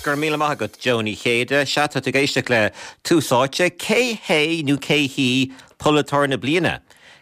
Go raibh míle maith agat, Joe Ní Chéide. Sea, tá tú ag éisteacht le Tús Áite. Cé hé nó cé hí polaiteoir na bliana?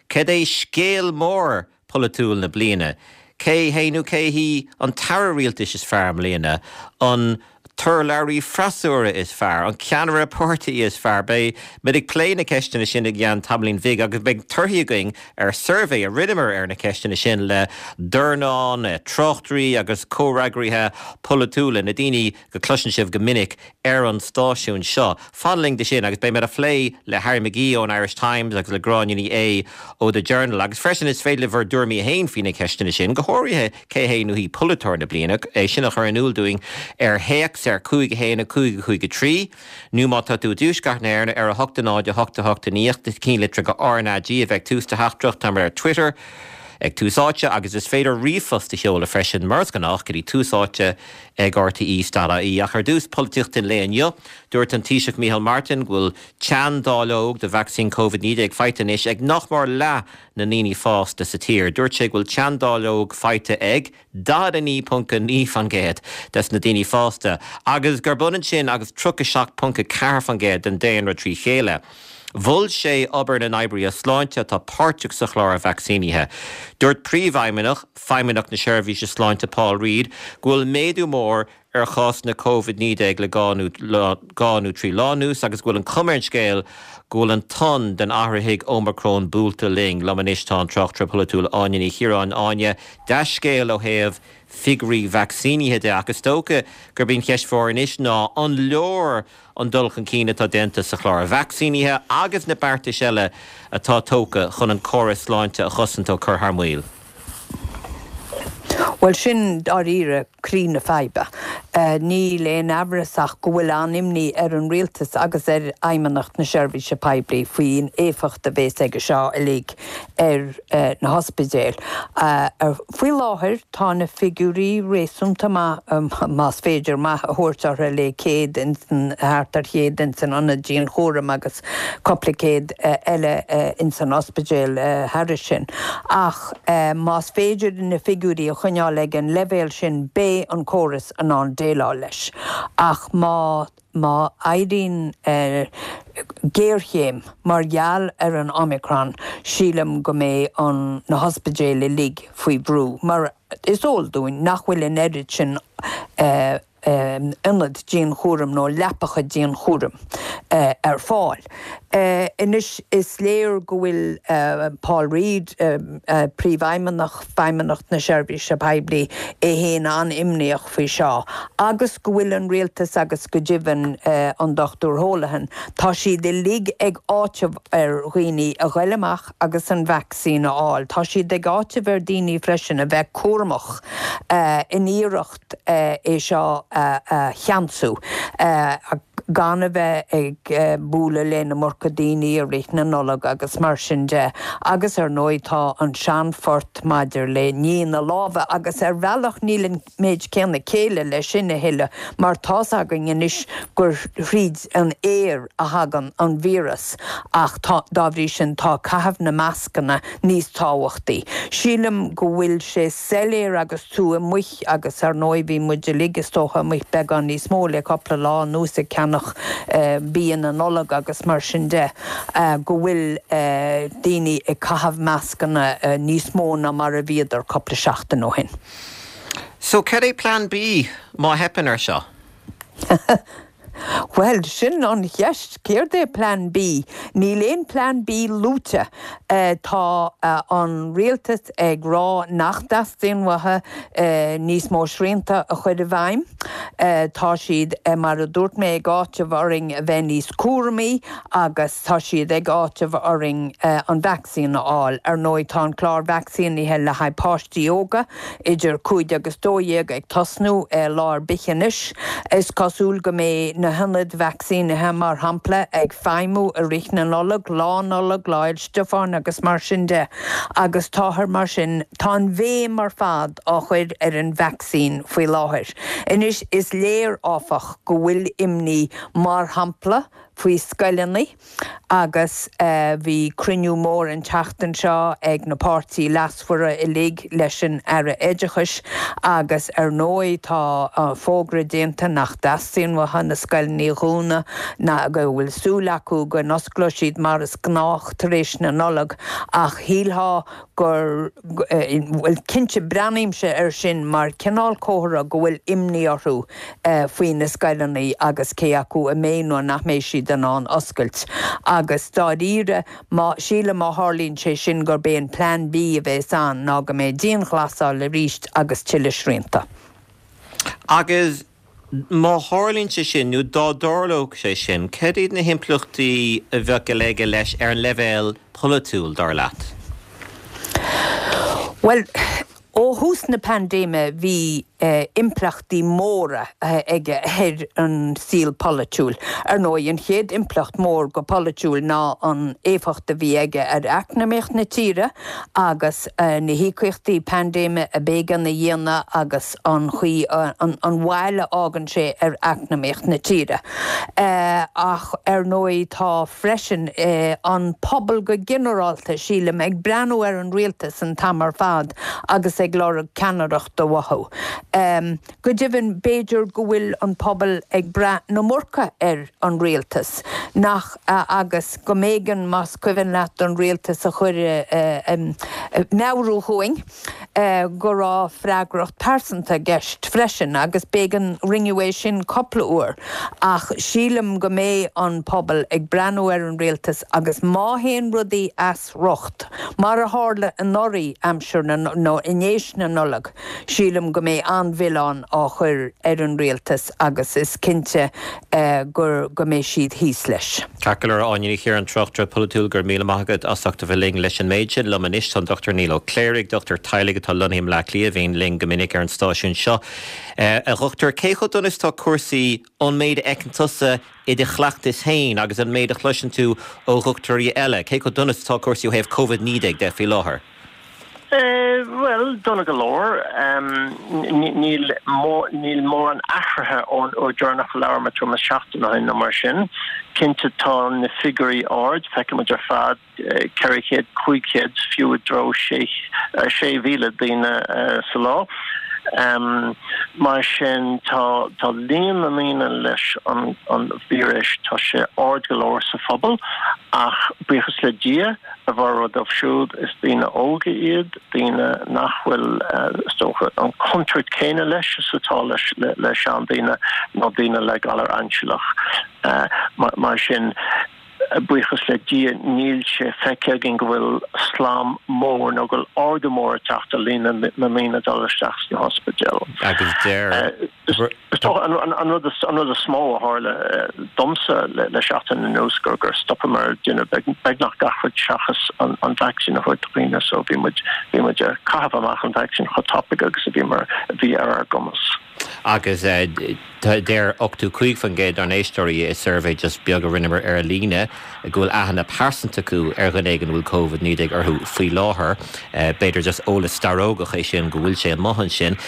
Cad é scéal mór polaitiúil na bliana? Cé hé nó cé hí an t-aire rialtais is fearr i mbliana? An t-urlabhraí freasúra is fearr? An ceannaire páirtí is fearr? Beidh muid ag plé na ceisteanna sin i gceann tamaillín bhig agus beidh torthaí againn ar suirbhé a rinneamar ar na ceisteanna sin le dornán tráchtairí agus comhfhreagraithe polaitiúla, na daoine go gcloiseann sibh go minic ar an stáisiún seo. Fan linn do sin agus beidh muid á phlé le Harry McGee ón Irish Times agus le Gráinne Ní Aodha ó The Journal. Agus freisin is féidir libh bhur dtuairimí féin faoi na ceisteanna sin, go háirithe cé hé nó hí polaiteoir na bliana, é sin a chur in iúl dúinn ar théacs ar 5 1 5 5 3 nó má tá tú i dTuaisceart na hÉireann ar 8 0 8 8 9 ceannlitir go RnaG a bheidh ag tús do theachtaireacht. Táimid ar Twitter ag Tús Áite agus is féidir ríomhphost a sheoladh freisin mar is gnách go dtí Tús Áite ag rte.ie. Ach ar dtús, polaitíocht an lae inniu. Dúirt an Taoiseach Micheál Martin go bhfuil teanndáileog de vacsaín Covid-19 faighte anois ag nach mór leath na ndaoine fásta sa tír. Dúirt sé go bhfuil teanndáileog faighte ag 49.9% des na daoine fásta agus gurb ionann sin agus 37.4% den daonra trí chéile. Mhol sé obair na n-oibrithe sláinte atá páirteach sa chlár vacsaínithe. Dúirt Príomhfheidhmeannach Feidhmeannacht na Seirbhíse Sláinte Paul Reid go bhfuil méadú mór ar chásanna Covid-19 le dhá nó trí lá anuas agus go bhfuil an chuma ar an scéal go bhfuil an tonn den athraithigh Omicron buailte linn. Liom anois tá an tráchtaire polaitiúil Áine Ní Chiaráin. Áine, dea-scéal ó thaobh figiúirí vacsaínithe de ach is dócha gurb í an cheist mhór anois ná an leor an dul chun cinn atá déanta sa chlár vacsaínithe agus na beartais eile atá tógtha chun an córas sláinte a chosaint ó cur thar maoil. Bhuel, sin dáiríre croí na faidhbe. Níl aon amhras ach go bhfuil an-imní ar an rialtas agus ar Fheidhmeannacht na Seirbhíse Poiblí faoin éifeacht a bhéas aige seo uilig ar na hospidéil. Faoi láthair tá na figiúirí réasúnta maith, más féidir maith a thabhairt orthu, le 100 ins an, thart ar chéad ins an ionad dianchúraim agus cupla céad eile ins an ospidéal thairis sin. Ach más féidir na figiúirí a choinneáil ag an leibhéal sin beidh an córas in ann déileáil leis. Ach má. Má éiríonn géarchéim mar gheall ar an Omicron, sílim go mbeidh an na hospidéil uilig faoi bhrú, mar is eol dúinn nach bhfuil an oiread sin ionad dianchúraim nó leapacha dianchúraim ar fáil. Anois is léir go bhfuil Paul Reid, Príomhfheidhmeannach Feidhmeannacht na Seirbhíse Poiblí, é féin an-imníoch faoi seo agus go bhfuil an rialtas agus go deimhin an Dr Holohan, tá siad uilig ag áiteamh ar dhaoine a ghoil amach agus an vacsaín a fháil. Tá siad ag áiteamh ar daoine freisin a bheith cúramach in iarracht é seo a cheansú. gan a bheith ag bualadh le an iomarca daoine i rith na Nollag agus mar sin de. Agus ar ndóigh tá an seanphort maidir le ní na lámha agus ar bhealach níl an méid céanna céille leis sin a thuilleadh mar tá's againn anois gur thríd an aer a thagann an víreas ach tá, dá bhrí sin tá caitheamh na mascanna níos tábhachtaí. Sílim go bhfuil sé soiléir agus tú amuigh agus ar ndóigh bhí muid uilig is dócha amuigh beagán níos mó le cupla lá anuas ag ceannach bia na Nollag agus mar sin de, go bhfuil daoine ag caitheamh mascanna níos mó ná mar a bhíodar cupla seachtain ó shin. So cad é Plean B má theipeann ar seo? Bhuel, sin an cheist, céard é Plean B? Níl aon Plean B luaite. Tá an rialtas ag rá nach dteastaíonn uathu níos mó srianta a chur i bhfeidhm. Tá siad, mar a dúirt mé, ag áiteamh orainn a bheith níos cúramaí agus tá siad ag áiteamh orainn an vacsaín a fháil. Ar ndóigh, tá an clár vacsaínithe le haghaidh páistí óga idir 5 agus 12 ag tosnú lá ar bith anois. Is cosúil go mbeidh na hionaid vacsaínithe, mar shampla, ag feidhmiú i rith na Nollag, Lá Nollag, Lá Fhéil Stiofáin agus mar sin de, agus táthar mar sin, tá an bhéim ar fad á chur ar an vacsaín faoi láthair. Anois, is léir, áfach, go bhfuil imní, mar shampla, Faoi scoileanna agus bhí cruinniú mór an tseachtain seo ag na páirtí leasmhara uilig leis an Aire Oideachais agus ar ndóigh tá fógra déanta nach dteastaíonn uathu na scoileanna a dhúnadh ná go bhfuil súil acu go n-osclóidh siad mar is gnách tar éis na Nollag ach shílfeá gur, bhuel cinnte breathnaímse air sin mar cineál comhartha go bhfuil imní orthu faoi na scoileanna agus cé acu a mbeidh nó nach mbeidh siad in ann oscailt. Agus dáiríre, má, sílim má tharlaíonn sé sin gurb é an Plean B a bheas ann ná go mbeidh dianghlasáil arís agus tuilleadh srianta. Agus Má tharlaíonn sé sin, nó dá dtarlódh sé sin, cad iad na himpleachtaí a bheadh aige leis ar an leibhéal polaitiúil, dar leat? Bhuel, ó thús na paindéime bhí impleachtaí móra aige ar an saol polaitiúil. Ar ndóigh, an chéad impleacht mór go polaitiúil ná an éifeacht a bhí aige ar eacnamaíocht na tíre agus na híocaíochtaí paindéime a b'éigean a dhéanamh agus an chaoi, an bhail a fhágann sé ar eacnamaíocht na tíre. Ach ar ndóigh tá freisin an pobal go ginearálta, sílim, ag breathnú ar an rialtas an t-am ar fad agus ag lorg ceannaireachta uathu. Go deimhin b'fhéidir go bhfuil an pobal ag brath an iomarca ar an rialtas, nach, agus go mb'éigean, más cuimhin leat, don rialtas a chur ag meabhrú dhúinn, go raibh freagracht pearsanta i gceist freisin agus b'éigean, rinneadh é sin cupla uair ach sílim go mbeidh an pobal ag breathnú ar an rialtas agus má théann rudaí as riocht, mar a tharla anuraidh aimsir na, nó i ndéis na Nollag, sílim go mbeidh an-mhilleán á chur ar an rialtas agus is cinnte gur, go mbeidh siad thíos leis. Ceart go leor, Áine Ní Chiaráin, tráchtaire polaitiúil, go raibh míle maith agat as ucht a bheith linn leis an méid sin. Liom anois tá an Dr Niall Ó Cléirigh, dochtúir teaghlaigh atá lonnaithe i mBleá Cliath, a bhíonn linn go minic ar an stáisiún seo. A dhochtúir, cé chomh dona is atá cúrsaí ón méid a fheiceann tusa i do chleachtas féin agus an méid a chloiseann tú ó dhochtúirí eile? Cé chomh dona is atá cúrsaí ó thaobh Covid-19 de faoi láthair? Bhuel, dona go leor. Níl níl mórán athraithe ón uair deireanach a labhair muid tuairim is seachtain ó shin nó mar sin. Cinnte tá na figiúirí ard, feiceann muid ar fad 400, 500, fiú i dtreo 6,000 daoine sa lá. Mar sin tá tá líon na ndaoine leis an an víreas, tá sé ard go leor sa phobal ach buíochas le Dia, A bhformhór dóibh siúd, is daoine óga iad, daoine nach bhfuil, is dócha, an chontúirt chéanna leis is atá le seandaoine nó daoine le galar ainsealach. Mar sin, buíochas le Dia, níl sé feicthe againn go bhfuil slám mór nó go bhfuil ardú mór ag teacht ar líon na ndaoine ag dul isteach sna hospidéil. Agus deir. Is dócha an rud is mó a tharla domsa le seachtain anuas gur gur stopamar ag déanamh beagnach gach rud seachas an vacsaín a thabhairt do dhaoine so bhí muid bhí muid ag caitheamh amach an vacsaín chomh tapaidh agus a bhí mar a bhí ar ár gcumas. Agus deir 85% dár n-éisteoirí i suirbhé just beag a rinneamar ar líne go bhfuil aithne pearsanta acu ar dhuine éigin a bhfuil Covid-19 orthu faoi láthair. B'fhéidir just eolas starógach é sin go bhfuil sé amuigh ansin.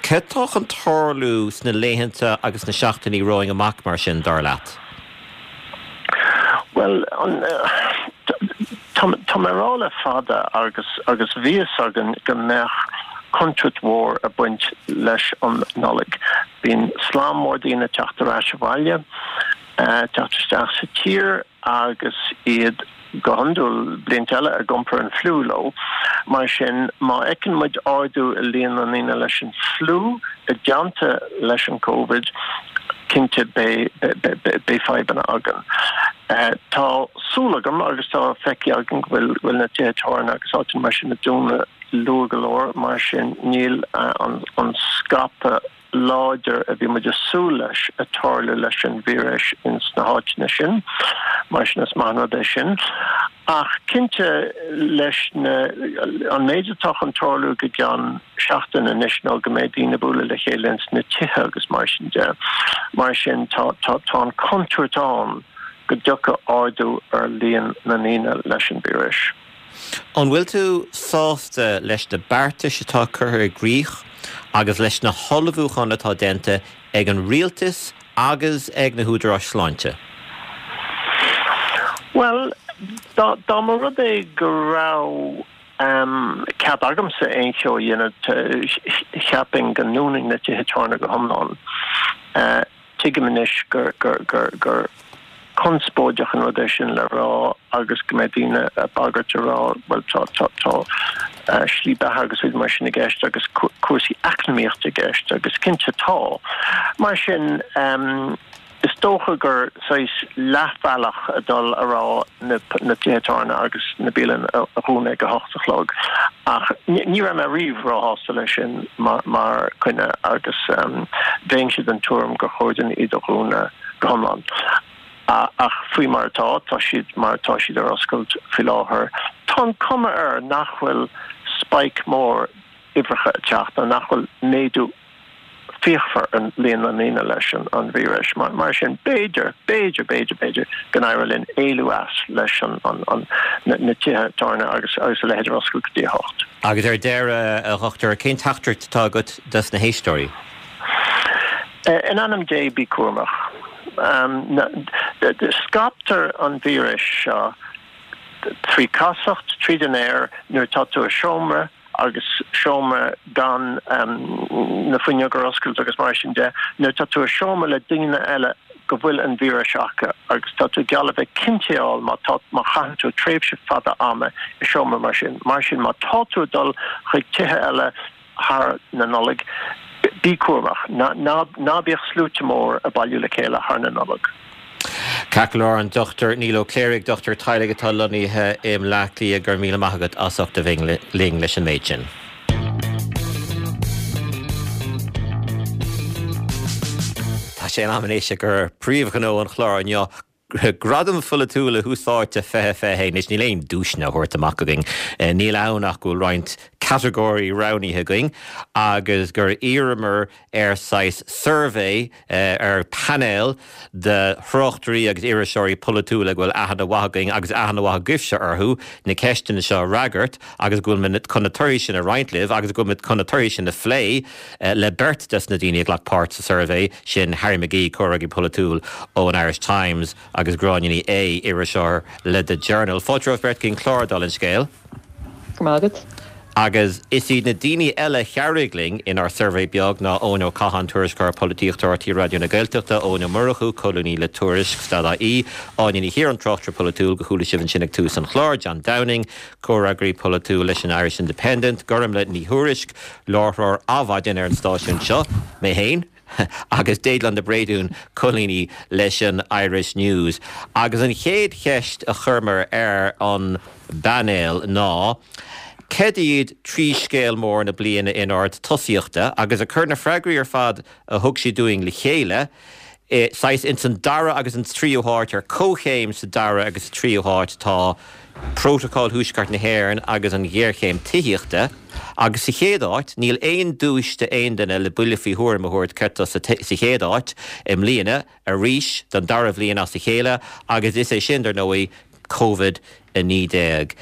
Cad tá chun tarlú sna laethanta agus sna seachtainí romhainn amach mar sin, dar leat? Bhuel, tá mé ag rá le fada agus agus bhí fhios againn go mbeadh contúirt mhór ag baint leis an Nollaig. Bíonn slám mór daoine ag teacht ar ais abhaile, teacht isteach sa tír agus iad go hiondúil, blianta eile ag iompar an fliú leo. Mar sin, má fheiceann muid ardú i líon na ndaoine leis an fliú i dteannta leis an Covid, cinnte beidh fadhbanna againn. Tá súil agam agus tá feicthe againn go bhfuil na tithe tábhairne agus áiteanna mar sin ag dúnadh luath go leor, mar sin níl an scaipeadh láidir a bhí muid ag súil leis ag tarlú leis an víreas ins na háiteanna sin. Mar sin is maith an rud é sin. Ach cinnte leis na, an méid atá chun tarlú go gceann seachtain anois ná go mbeidh daoine ag bualadh le chéile ins na tithe agus mar sin de. Mar sin tá, tá, tá an chontúirt ann go dtiocfaidh ardú ar líon na ndaoine leis an víreas. An bhfuil tú sásta leis na beartais atá curtha i gcrích agus leis na hullmhúcháin atá déanta ag an rialtas agus ag na húdaráis sláinte? Bhuel, dá mba rud é go raibh cead agamsa aon cheo a dhéanamh, cheapfainn go ndúnfainn na tithe tábhairne go hiomlán. Tuigim anois gur conspóideach an rud é sin le rá agus go mbeidh daoine ag bagairt a rá bhuel tá tá slí beatha agus rudaí mar sin i gceist agus cúrsaí eacnamaíochta i gceist agus cinnte tá. Mar sin is dócha gur saghas leathbhealach a dul a rá na tithe tábhairne agus na bialanna a dhúnadh ag a hocht a chlog ach ní raibh mé riamh róshásta leis sin mar choinne agus bheinnse den tuairim gur chóir dúinn iad a dhúnadh go hiomlán. Ach faoi mar atá, tá siad mar atá siad ar oscailt faoi láthair. Tá an cuma air nach bhfuil spike mór uimhreacha ag teacht nó nach bhfuil méadú fíochmhar ar líon na ndaoine leis an víreas. Mar sin, b'fhéidir, b'fhéidir, b'fhéidir, b'fhéidir go n-éireoidh linn éalú as leis na tithe tábhairne agus a leithéid ar oscailt go dtí a hocht. Agus ar deireadh, a Dhochtúir, cén teachtaireacht atá agat dos na héisteoirí? In ainm Dé, bí cúramach. Scaiptear an víreas seo trí casacht, tríd an aer, nuair atá tú i seomra, agus seomra gan na fuinneoga ar oscailt agus mar sin de, nuair atá tú i seomra le daoine eile go bhfuil an víreas acu agus tá tú geall le bheith cinnteáil má tá má chaitheann tú tréimhse fada ama i seomra mar sin. Mar sin má tá tú ag dul chuig tithe eile thar na Nollag, bí cúramach. Ná bíodh sluaite mór ag bailiú le chéile thar na Nollag. Ceart go leor, an Dr Niall Ó Cléirigh, dochtúir teaghlaigh atá lonnaithe i mBleá Cliath, go raibh míle maith agat as ucht a bheith linn leis an méid sin. Tá sé in am anois ag príomhghnó an chláir inniu, Gradaim Pholaitiúla Thús Áite 2021. Anois, níl aon duaiseanna á thabhairt amach againn. Níl ann ach go bhfuil roinnt catagóirí roghnaithe againn agus gur iarramar ar saghas suirbhé, ar phainéal de thráchtairí agus iriseoirí polaitiúla go bhfuil aithne mhaith againn agus aithne mhaith agaibhse orthu, na ceisteanna seo a fhreagairt agus go bhfuil muid chun na torthaí sin a roinnt libh agus go bhfuil muid chun na torthaí sin a phlé le beirt des na daoine a ghlac páirt sa suirbhé sin, Harry McGee, comhfhreagraí polaitiúil ón Irish Times agus Gráinne Ní Aodha, iriseoir le The Journal. Fáilte romhaibh beirt chuig an chlár, dála an scéil. Go raibh maith agat. Agus is iad na daoine eile a chabhraigh linn inár suirbhé beag ná Eoin Ó Catháin, Tuairisceoir Polaitíochta RTÉ Raidió na Gaeltachta, Eoin Ó Murchú, Colúnaí le Tuairisc, Stad.ie, Áine Ní Chiaráin, Tráchtaire Polaitiúil, go chuala sibh ansin ag tús an chláir, John Downing, Comhfhreagraí Polaitiúil leis an Irish Independent, Gormlaith Ní Thuairisg, Láithreoir Adhmhaidin ar an stáisiún seo, mé féin. agus Déaglán De Bréadún, colúnaí leis an Irish News. Agus an chéad cheist a chuireamar ar an bpainéal ná, cad iad 3 scéal mór na bliana in ord tosaíochta? Agus ag cur na freagraí ar fad a thug siad dúinn le chéile, saghas ins an dara agus an tríú háit, ar comhchéim sa dara agus sa tríú háit tá Prótocol Thuaisceart na hÉireann agus an ghéarchéim tithíochta, agus sa chéad áit, níl aon duais d'aon duine le buille faoi thuairim a thabhairt céard atá sa chéad áit i mbliana, arís, don dara bhliain as a chéile, agus is é sin, dar ndóigh, Covid-19.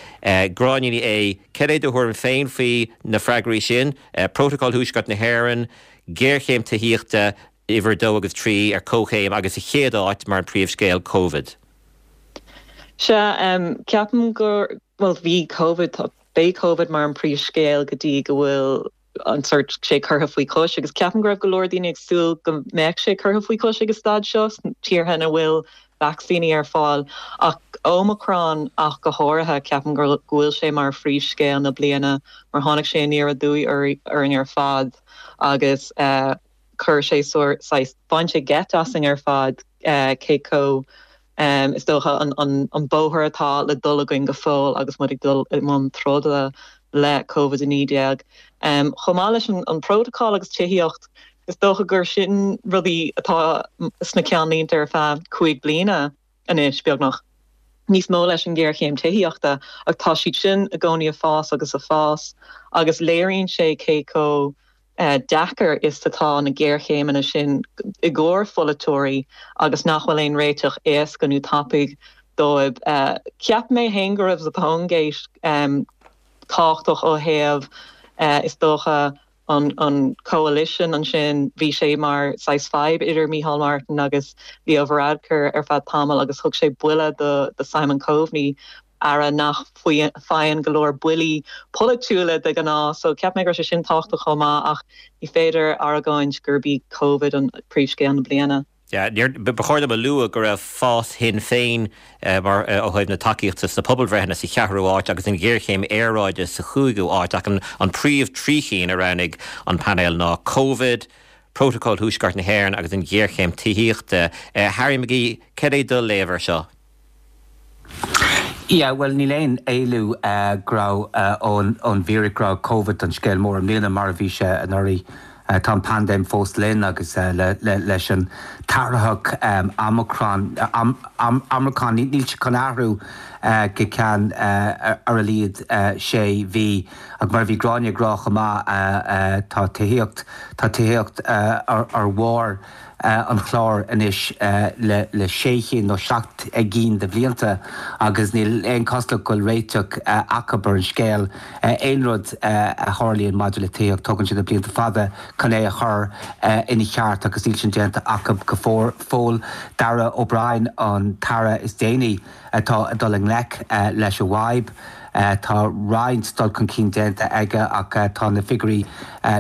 Gráinne Ní Aodha, cad é do thuairim féin faoi na freagraí sin, Prótocol Thuaisceart na hÉireann, géarchéim tithíochta, uimhir a dó agus trí ar comhchéim agus sa chéad áit mar an príomhscéal, Covid. Sea, ceapaim gur, bhuel, bhí Covid, tá, beidh Covid mar an príomhscéal go dtí go bhfuil an sórt, sé curtha faoi chois agus ceapaim go raibh go leor daoine ag súil go mbeadh sé curtha faoi chois ag an staid seo sna tíortha ina bhfuil vacsaíní ar fáil. Ach Omicron ach go háirithe, ceapaim go bhfuil sé mar phríomhscéal na bliana mar tháinig sé aniar aduaidh orainn ar fad agus eh, chuir sé saghas, bhain sé geit asainn ar fad cé chomh, is dócha, an bóthar atá le dul againn go fóill agus muid ag dul i mbun troda le Covid-19. Chomh maith leis an bprótacal agus tithíocht, is dócha gur sin rudaí atá sna ceannlínte ar feadh 5 bliana anois, beagnach. Níos mó leis an ghéarchéim tithíochta ach tá siad sin i gcónaí ag fás agus ag fás agus léiríonn sé cé chomh deacair is atá na géarchéimeanna sin i gcomhair pholaiteoirí agus nach bhfuil aon réiteach éasca nó tapaidh dóibh. Cheap mé féin go raibh Zappone Gate tábhachtach ó thaobh, is dócha, An coalition ansin, bhí sé mar saghas fadhb idir Micheál Martin agus Leo Varadkar ar feadh tamaill agus thug sé buille do Simon Coveney, aire nach faigheann go leor buillí polaitiúla de ghnáth. So cheap mé go raibh sé sin tábhachtach chomh maith ach ní féidir argóint gurb í Covid an príomhscéal na bliana. Yeah, ba chóir dom a lua go raibh fás Shinn Féin mar ó thaobh na tacaíochta sna pobalbhreitheanna sa cheathrú áit agus an ghéarchéim aeráide sa chúigiú áit ach an príomh 3 chinn a roghnaigh an painéal ná Covid, Prótacal Thuaisceart na hÉireann agus an ghéarchéim tithíochta. Harry McGee, cad é do léamh air seo? Yeah, bhuel níl aon éalú go raibh ón bhfíric go raibh Covid an scéal mór i mbliana mar a bhí sé anuraidh. Tá an paindéim fós linn agus leis an t-athraitheach Omicron, Omicron, níl sé chun athrú go ceann ar a laghad sé mhí. Ach mar a bhí Gráinne ag rá chomh maith tá tithíocht, tá tithíocht ar bharr an chláir anois le sé chinn nó 7 gcinn de bhlianta agus níl aon chosúlacht go bhfuil réiteach acu ar an scéal. Aon rud a tharlaíonn maidir le tithíocht, tógann sé na blianta fada chun é a chur ina cheart agus níl sin déanta acu go fóill. Darragh O'Brien an t-aire is déanaí atá ag dul i ngleic leis an bhfadhb. Tá roinnt dul chun cinn déanta aige ach tá na figiúirí,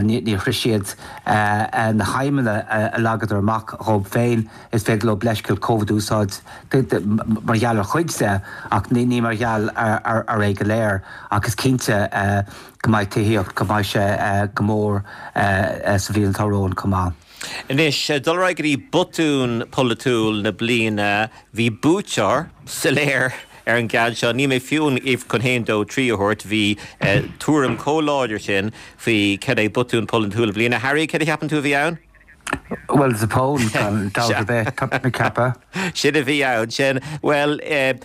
níor shroich siad na haidhmeanna a leagadar amach dhóibh féin. Is féidir leo leithscéal Covid a úsáid mar gheall ar chuid de ach ní mar gheall ar é go léir. Ach is cinnte go mbeidh tithíocht, go mbeidh sé go mór sa bhliain atá romhainn chomh maith. Anois, dul ar aghaidh go dtí botún polaitiúil na bliana, bhí buaiteoir soiléir ar an gceann seo. Níl mé fiú chun haon, dó, trí a thabhairt, bhí tuairim chomh láidir sin faoi cad é botún polaitiúil na bliana. Harry, cad a cheapann tú a bhí ann? Bhuel, Zappone, gan dabht ar bith, tá mé ag ceapadh. Sin a bhí ann, sin. Bhuel,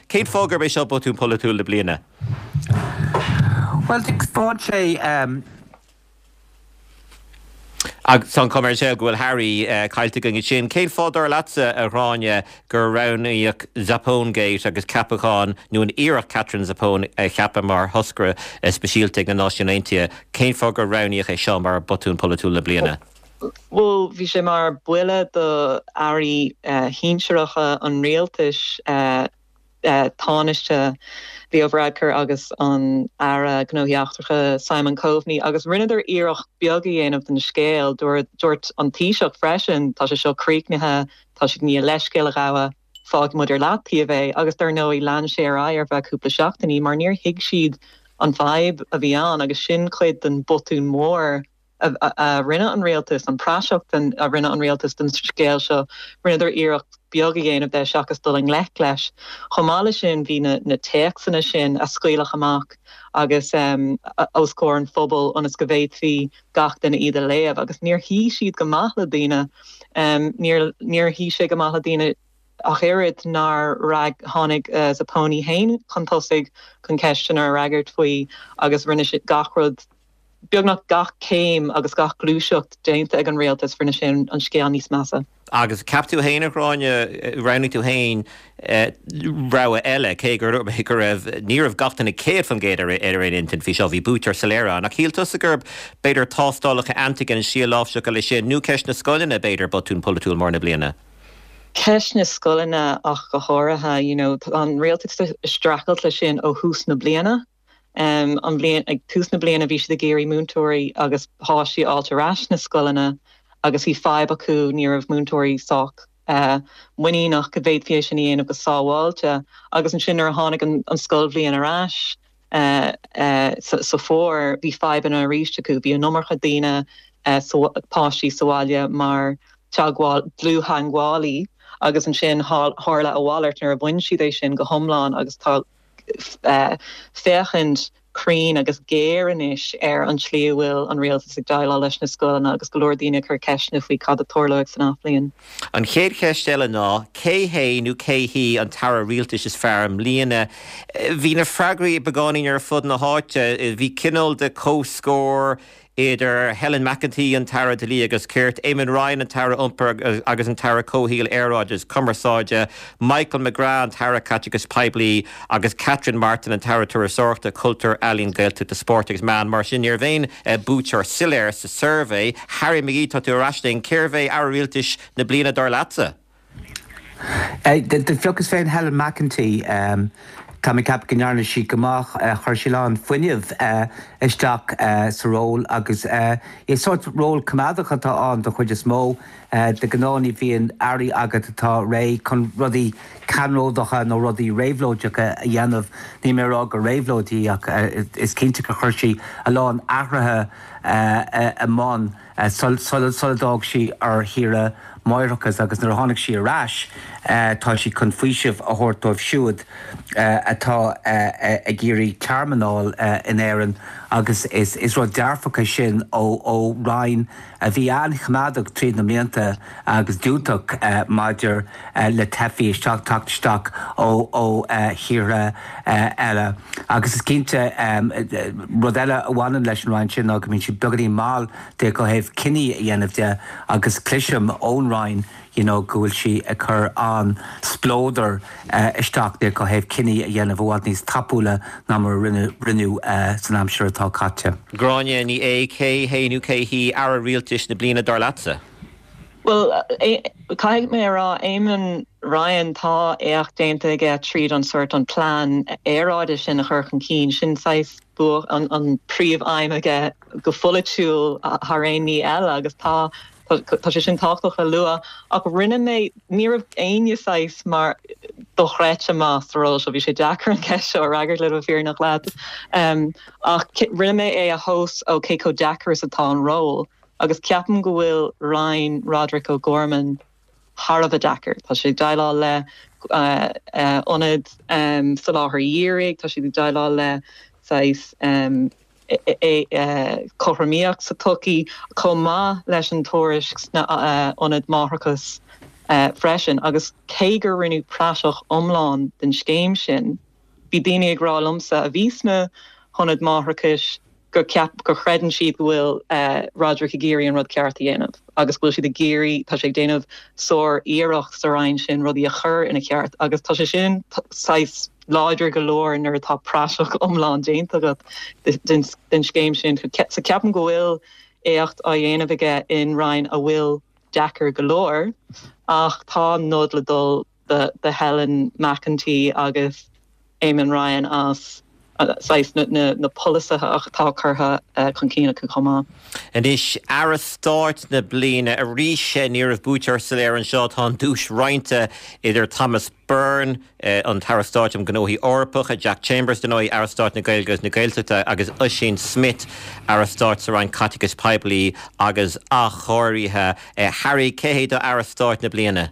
cén fáth gurb é seo botún polaitiúil na bliana? Bhuel, taispeánann sé. Agus tá an chuma ar an scéal go bhfuil Harry caillte againn ansin. Cén fáth, dar leatsa, a Ghráinne, gur roghnaíodh Zappone-gate agus ceapachán, nó an iarracht Katherine Zappone a cheapadh mar thoscaire speisialta ag na Náisiúin Aontaithe, cén fáth gur roghnaíodh é seo mar botún polaitiúil na bliana? Bhuel, bhí sé mar buille do airí shinsearacha an rialtais. Tánaiste Leo Varadkar agus an Aire Gnóthaí Eachtracha Simon Coveney agus rinneadar iarracht beag a dhéanamh den scéal. Dúirt an Taoiseach freisin, tá sé seo críochnaithe, tá siad i ndiaidh leithscéal a ghabhadh, fágfaidh muid ar leataobh é. Agus dar ndóigh lean sé ar aghaidh ar feadh cúpla seachtainí mar níor thuig siad an fadhb a bhí ann agus sin cuid den botún mór a rinne an rialtas, an praiseach a rinne an rialtas den scéal seo, rinneadar iarracht beag a dhéanamh de seachas dul i ngleic leis. Chomh maith leis sin, bhí na téacsanna sin a scaoileadh amach agus os comhair an phobail ionas go bhféadfaí gach duine iad a léamh agus níor shuigh siad go maith le daoine. Níor shuigh sé go maith le daoine ach oiread nár tháinig Zappone féin chun tosaigh chun ceisteanna a fhreagairt faoi agus rinne sé gach rud Beagnach gach céim agus gach gluaiseacht déanta ag an rialtas, rinne sé an scéal níos measa. Agus cheap tú féin, a Ghráinne, roghnaigh tú féin rogha eile, cé go raibh, ní raibh gach duine 100% ar aon intinn faoi seo, bhí buaiteoir soiléir ann. Ach shíl tusa gurb b'fhéidir tástálacha antigen, an slí a láimhseáil leis sin, nó ceist na scoileanna, b'fhéidir, botún polaitiúil mór na bliana? Ceist na scoileanna ach go háirithe, you know, tá an rialtas ag streachailt leis sin ó thús na bliana. An bhliain, ag tús na bliana bhí siad ag iarraidh múinteoirí agus páistí a fháilt ar ais sna scoileanna agus bhí fadhb acu, ní raibh múinteoirí sách muiníneach go bhféadfaí é sin a dhéanamh go sábháilte. Agus ansin nuair a tháinig an scoilbhliain ar ais sa bhfómhar, bhí fadhbanna arís acu, bhí an iomarca daoine, páistí sa bhaile mar teagmháil, dlúth-theagmhálaí agus ansin tharla a mhalairt nuair a bhain siad é sin go hiomlán agus tá féachaint cruinn agus géar anois ar an tslí a bhfuil an rialtas ag déileáil leis na scoileanna agus go leor daoine ag cur ceisteanna faoi cad a tarlóidh san athbhliain. An chéad cheist eile ná, cé hé nó cé hí an t-aire rialtais is fearr i mbliana? Bhí na freagraí beagáinín ar fud na háite. Bhí cineál de comhscór. idir Helen McEntee, an tAire Dlí agus Cirt, Eamon Ryan, an tAire Iompair agus an tAire Comhshaoil, Aeráide agus Cumarsáide, Michael McGrath, an tAire Caiteachais Poiblí, agus Catherine Martin, an tAire Turasóireachta, Cultúir, Ealaíon, Gaeltachta, Spóirt agus Meán. Mar sin, ní raibh aon buaiteoir soiléir sa suirbhé. Harry McGee, tá tú ar ais linn. Cérbh é Aire Rialtais na bliana dar leatsa? Do phiocas féin Helen McEntee. Tá mé ag ceapadh go ndearna sí go maith. Chuir sí a lán fuinnimh isteach sa ról agus is sórt ról coimeádach atá ann don chuid is mó. De ghnáth ní bhíonn airí agat atá réidh chun rudaí ceannródacha nó rudaí réabhlóideacha a dhéanamh. Níl mé ag rá gur réabhlóid í ach is cinnte gur chuir sí a lán athruithe i mbun. Sula d'fhág sí ar shaoire máithreachais agus nuair a tháinig sí ar ais tá sí chun faoiseamh a thabhairt dóibh siúd atá ag iarraidh tearmann a fháil in Éirinn agus is rud dearfach é sin ó Roinn a bhí an-choimeádach tríd na mblianta agus diúltach maidir le teifigh isteach, teacht isteach ó thíortha eile. Agus is cinnte, rud eile a bhaineann leis an Roinn sin ná go mbíonn siad beagáinín mall de ó thaobh cinní a dhéanamh de agus cloisim ón Roinn you know go bhfuil sí ag cur an-spleodar isteach de ó thaobh cinní a dhéanamh i bhfad níos tapúla ná mar a rinneadh san aimsir atá caite. Gráinne Ní Aodha, cé hé nó cé hí Aire Rialtais na bliana dar leatsa? Bhuel, caithfidh mé a rá, Eamon Ryan, tá éacht déanta aige tríd an sórt an plean aeráide sin a chur chun cinn. Sin saghas bua an príomh-aidhm aige go pholaitiúil thar aon ní eile agus tá tá sé sin tábhachtach le lua. Ach rinne mé, ní raibh éinne saghas mar dochreidte maith sa ról seo, bhí sé deacair an ceist seo a fhreagairt le bheith fírinneach leat. Ach rinne mé é a thomhas ó cé chomh deacair is atá an ról. Agus ceapaim go bhfuil Roinn Roderic O'Gorman thar a bheith deacair. Tá sé ag déileáil le ionaid soláthair dhírigh, tá siad ag déileáil le saghas cothromaíocht sa tsochaí, chomh maith leis an tuairisc sna ionaid máithreachais freisin. Agus cé gur rinneadh praiseach iomlán den scéim sin, bhí daoine ag rá liomsa a bhí sna hionaid máithreachais, gur ceap, gur chreideann siad go bhfuil Roderic ag iarraidh an rud ceart a dhéanamh agus go bhfuil siad ag iarraidh, tá sé ag déanamh sár-iarracht sa Roinn sin rudaí a chur ina cheart agus tá sé sin saghas láidir go leor nuair atá praiseach iomlán déanta agat den scéim sin. So ceapaim go bhfuil éacht á dhéanamh aige in Roinn a bhfuil deacair go leor ach tá nod le dul do Helen McEntee agus Eamon Ryan as saghas na polasaithe atá curtha chun cinn acu chomh maith. Anois, Aire Stáit na bliana. Arís, ní raibh buaiteoir soiléir anseo. Tá an duais roinnte idir Thomas Byrne, an tAire Stáit um Ghnóthaí Eorpacha, Jack Chambers, dar ndóigh, Aire Stáit na Gaeilge agus na Gaeltachta, agus Oisín Smyth, Aire Stáit sa Roinn Caiteachais Poiblí agus Athchóirithe. Harry, cé hé do Aire Stáit na bliana?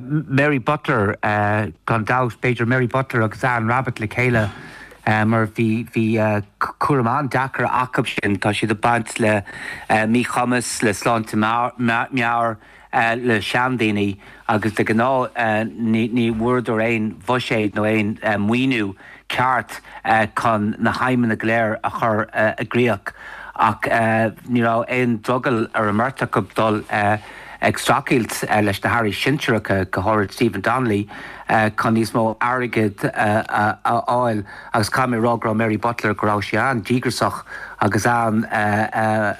Mary Butler, gan dabht. B'fhéidir Mary Butler agus Anne Rabbitte le chéile mar bhí bhí cúram an-deacair acu sin. Tá siad ag baint le míchumas, le sláinte meabhair, le seandaoine agus de ghnáth ní ní bhfuaireadar aon bhuiséad nó aon maoiniú ceart chun na haidhmeanna go léir a chur i gcríoch ach ní raibh aon drogall ar an mbeirt acu dul ag streachailt leis na hairí sinsearacha, go háirid Stephen Donnelly, chun níos mó airgid a fháil agus caithfidh mé a rá go raibh Mary Butler, go raibh sí an-díograiseach agus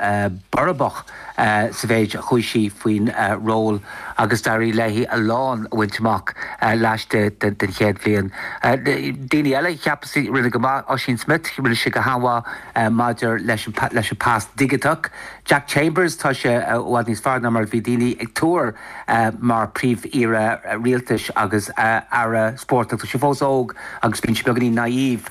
an-bhorrach. sa mhéid a chuaigh sí faoin ról agus d'éirigh léi a lán a bhaint amach laistigh den chéad bhliain. Daoine eile a cheapas a rinne go maith, Oisín Smyth, rinne sé go han-mhaith maidir leis an pas digiteach. Jack Chambers, tá sé i bhfad níos fearr ná mar a bhí daoine ag tuar mar Phríomh-Aoire Rialtais agus Aire Spóirt ach tá sé fós óg agus bíonn sé beagáinín naive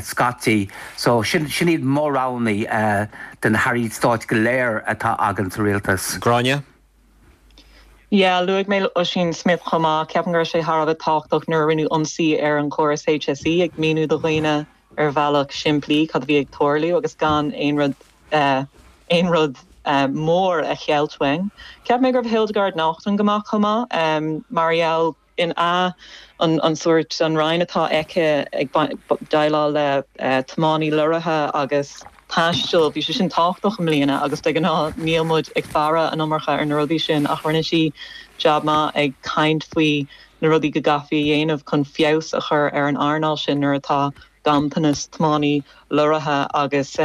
scaití. So sin iad mo roghanna. de na hairí stáit go léir atá againn sa rialtas. Gráinne? Yeah, luaigh mé Oisín Smyth chomh maith. Ceapaim go raibh sé thar a bheith tábhachtach nuair a rinneadh ionsaí ar an chóras HSE ag míniú do dhaoine ar bhealach simplí cad a bhí ag tarlú agus gan aon rud aon rud mór a cheilt uainn. Cheap mé go raibh Hildegarde Naughton go maith chomh maith mar gheall in a an an sórt an roinn atá aici ag déileáil le tiománaí lorraithe agus. taistil, bhí sé sin tábhachtach i mbliana agus de ghnáth níl muid ag faire an iomarca ar na rudaí sin ach rinne sí jab maith ag caint faoi na rudaí go gcaithfí a dhéanamh chun feabhas a chur ar an earnáil sin nuair atá ganntanas tiománaí leoraithe agus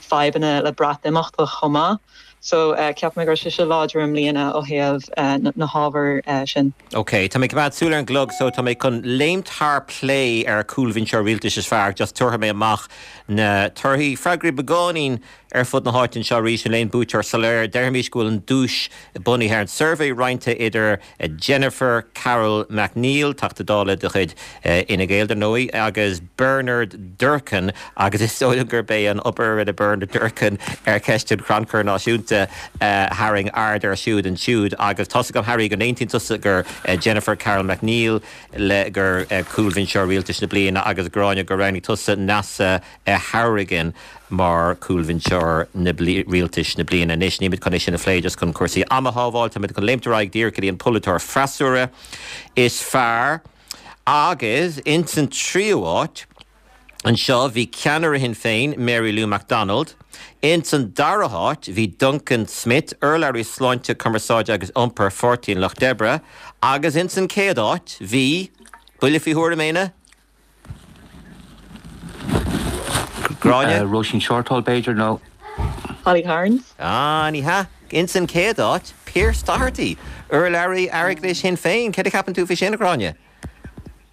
fadhbanna le Breatimeacht chomh maith. So ceapaim go raibh sise láidir i mbliana ó thaobh na hábhair sin. Ok, tá mé ag coimeád súil ar an gclog so tá mé chun léimt thar plé ar cúlbhinseoir rialtais is fearr, just tabharfaidh mé amach na torthaí. Freagraí beagáinín ar fud na háite anseo arís, níl aon buaiteoir soiléir. Déarfaimis go bhfuil an duais bunaithe ar an suirbhé roinnte idir Jennifer Carroll MacNeill, Teachta Dála de chuid Fhine Gael, dar ndóigh, agus Bernard Durkan, agus is dóigh liom gurb é an obair a rinne Bernard Durkan ar cheist an Chrannchuir Náisiúnta a tharraing aird air siúd ansiúd. Agus tá's agam, Harry, go n-aontaíonn tusa gur Jennifer Carroll MacNeill le gur cúlbhinseoir rialtais na bliana agus Gráinne gur roghnaigh tusa Neasa Hourigan mar chúlbhinseoir na rialtais na bliana. Anois, nílimid chun é sin a phlé just chun cúrsaí ama a shábháil, táimid chun léimt ar aghaidh díreach go dtí an polaiteoir freasúra is fearr. Agus ins an tríú háit anseo bhí ceannaire Shinn Féin, Mary Lou McDonald. Ins an dara háit bhí Duncan Smith, urlabhraí sláinte, cumarsáide agus iompair Pháirtí an Lucht Oibre. Agus ins an chéad áit bhí, buille faoi thuairim, Éanna? Gráinne? Róisín Shortall, b'fhéidir, nó. Holly Cairns? Ah, ní hea. Ins an chéad áit, Pearse Doherty, urlabhraí airgeadais Shinn Féin. Céard a cheapann tú faoi sin, a Ghráinne?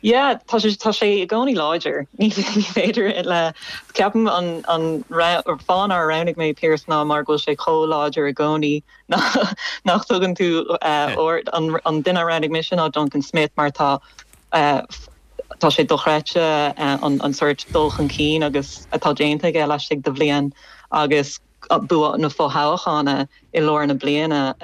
Yeah, tá sé, tá sé i gcónaí láidir. Ní féidir le, ceapaim an, an fáth nár roghnaigh mé Pearse ná mar go bhfuil sé chomh láidir i gcónaí nach dtugann tú aird, an duine a roghnaigh mise ná Duncan Smith mar tá Tá sé dochreidte an sórt dul chun cinn agus atá déanta aige laistigh de bhliain agus bua na fothoghchána i lár na bliana.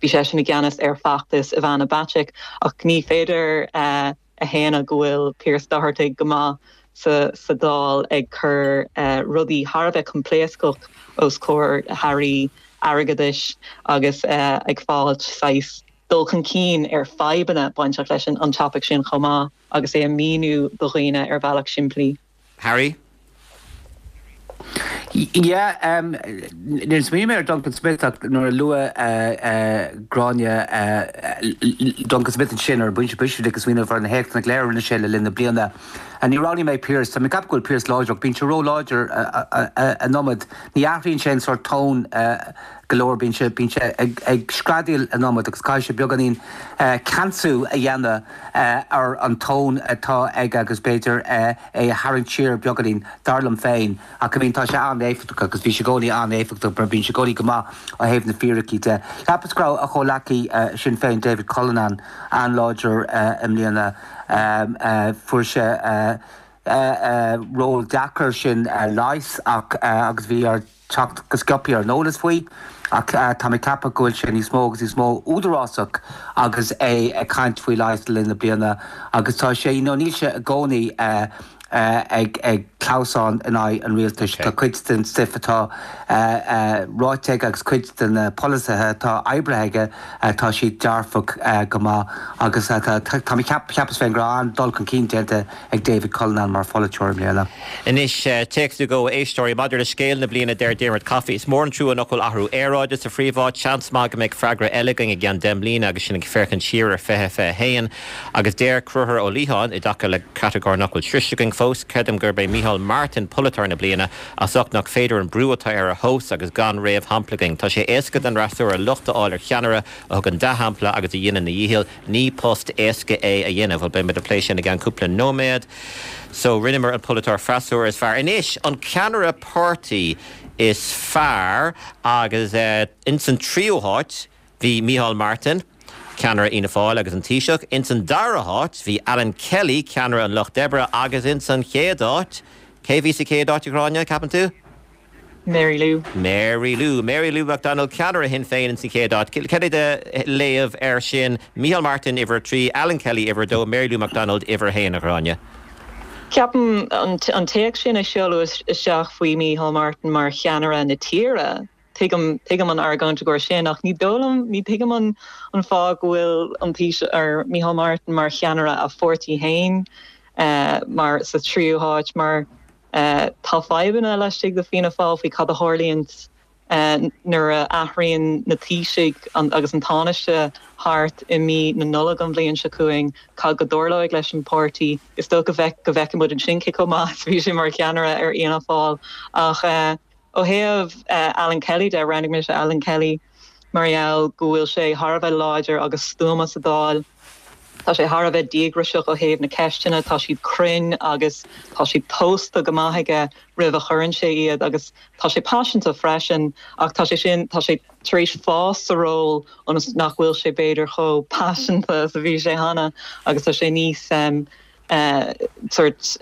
Bhí seisean i gceannas ar feachtas Ivana Bacik ach ní féidir a shéanadh go bhfuil Pearse Doherty go maith sa Dáil ag cur rudaí thar a bheith coimpléascach os comhair hairí airgeadais agus ag fáilt saghas dul chun cinn ar fadhbanna bainteach leis an topaic sin chomh maith agus é a mhíniú do dhaoine ar bhealach simplí. Harry? Yeah, níor smaoinigh mé ar Duncan Smith ach nuair a luaigh Gráinne Duncan Smith ansin ar an bpointe boise bhí mé ag smaoineamh ar na héachtanna go léir a rinne sé le linn na bliana. Ní roghnaigh mé Pearse, tá mé ag ceapadh go bhfuil Pearse láidir ach bíonn sé ró-láidir an iomad. Ní athraíonn sé an sórt tone go leor, bíonn sé, bíonn sé ag, ag screadaíl an iomad agus caithfidh sé beagáinín ceansú a dhéanamh ar an tón atá aige agus b'fhéidir é a tharraingt siar beagáinín, dar liom féin. Ach I mean tá sé an-éifeachtach agus bhí sé i gcónaí an-éifeachtach mar bíonn sé i gcónaí go maith ó thaobh na fíricí de. Cheapas go raibh a chomhleacaí Sinn Féin David Cullinane an-láidir i mbliana. Fuair sé ról deacair sin leighis ach agus bhí air teacht go sciobtha ar an eolas faoi ach tá mé ag ceapadh go bhfuil sé níos mó agus níos mó údarásach agus é ag caint faoi leigheas le linn na bliana agus tá sé, you know, níl sé i gcónaí ag ag clamhsán in aghaidh an rialtais. Tá cuid den stuif atá ráite aige agus cuid de na polasaithe atá oibrithe aige, tá siad dearfach go maith agus tá tá mé cheap cheapas féin go raibh an-dul chun cinn déanta ag David Cullinane mar pholaiteoir i mbliana. Anois, téacs nó dhó a éisteoirí, maidir le scéal na bliana, deir Diarmuid Coffey, Is mór an trua nach bhfuil athrú aeráide sa phríomháit. Seans maith go mbeidh freagra eile againn i gceann 10 mbliana agus sinn ag féachaint siar ar 2021. Agus deir Conchúr Ó Liatháin, i dtaca le catagóir nach bhfuil sroichte againn fós, Creidim gurb é Micheál Martin polaiteoir na bliana, as ucht nach féidir an brú atá air a thomhas agus gan réamhshampla againn. Tá sé éasca don fhreasúra locht a fháil ar cheannaire a thugann dea-shampla agus a dhéanann a dhícheall. Ní post éasca é a dhéanamh. Bhuel, beidh muid ag plé sin i gceann cúpla nóiméad. So, rinneamar an polaiteoir freasúra is fearr. Anois, an ceannaire páirtí is fearr agus ins an tríú háit bhí Micheál Martin, ceannaire Fhianna Fáil agus an Taoiseach. Ins an dara háit bhí Alan Kelly, ceannaire an Lucht Oibre agus ins an chéad áit, cé bhí sa chéad áit, a Ghráinne, ceapann tú? Mary Lou. Mary Lou. Mary Lou McDonald, ceannaire Shinn Féin ins an chéad áit. Cad é do léamh air sin? Micheál Martin, uimhir a 3, Alan Kelly, uimhir a 2, Mary Lou McDonald, uimhir a 1, a Ghráinne. Ceapaim an téacs sin a seoladh isteach faoi Micheál Martin mar cheannaire na tíre, tuigim, tuigim an argóint i gcomhair sin ach ní dóigh liom, ní tuigim an an fáth go bhfuil an Taoiseach, or Micheál Martin mar cheannaire a pháirtí féin mar sa tríú háit mar. Tá fadhbanna laistigh de Fianna Fáil faoi cad a tharlaíonn nuair a athraíonn na Taoisigh agus an Tánaiste thart i mí na Nollag an bhliain seo chugainn, cad go dtarlóidh leis an páirtí. Is dócha go bhfeicfidh muid ansin cé chomh maith is a bhí sé mar cheannaire ar Fhianna Fáil. Ach ó thaobh Alan Kelly de, roghnaigh mise Alan Kelly mar gheall go bhfuil sé thar a bheith láidir agus stuama sa Dáil. Tá sé thar a bheith díograiseach ó thaobh na ceisteanna, tá siad cruinn agus tá siad tomhaiste go maith aige roimh a chuireann sé iad agus tá sé paiseanta freisin ach tá sé sin, tá sé tar éis fás sa ról ionas nach bhfuil sé b'fhéidir chomh paiseanta is a bhí sé cheana agus tá sé níos sórt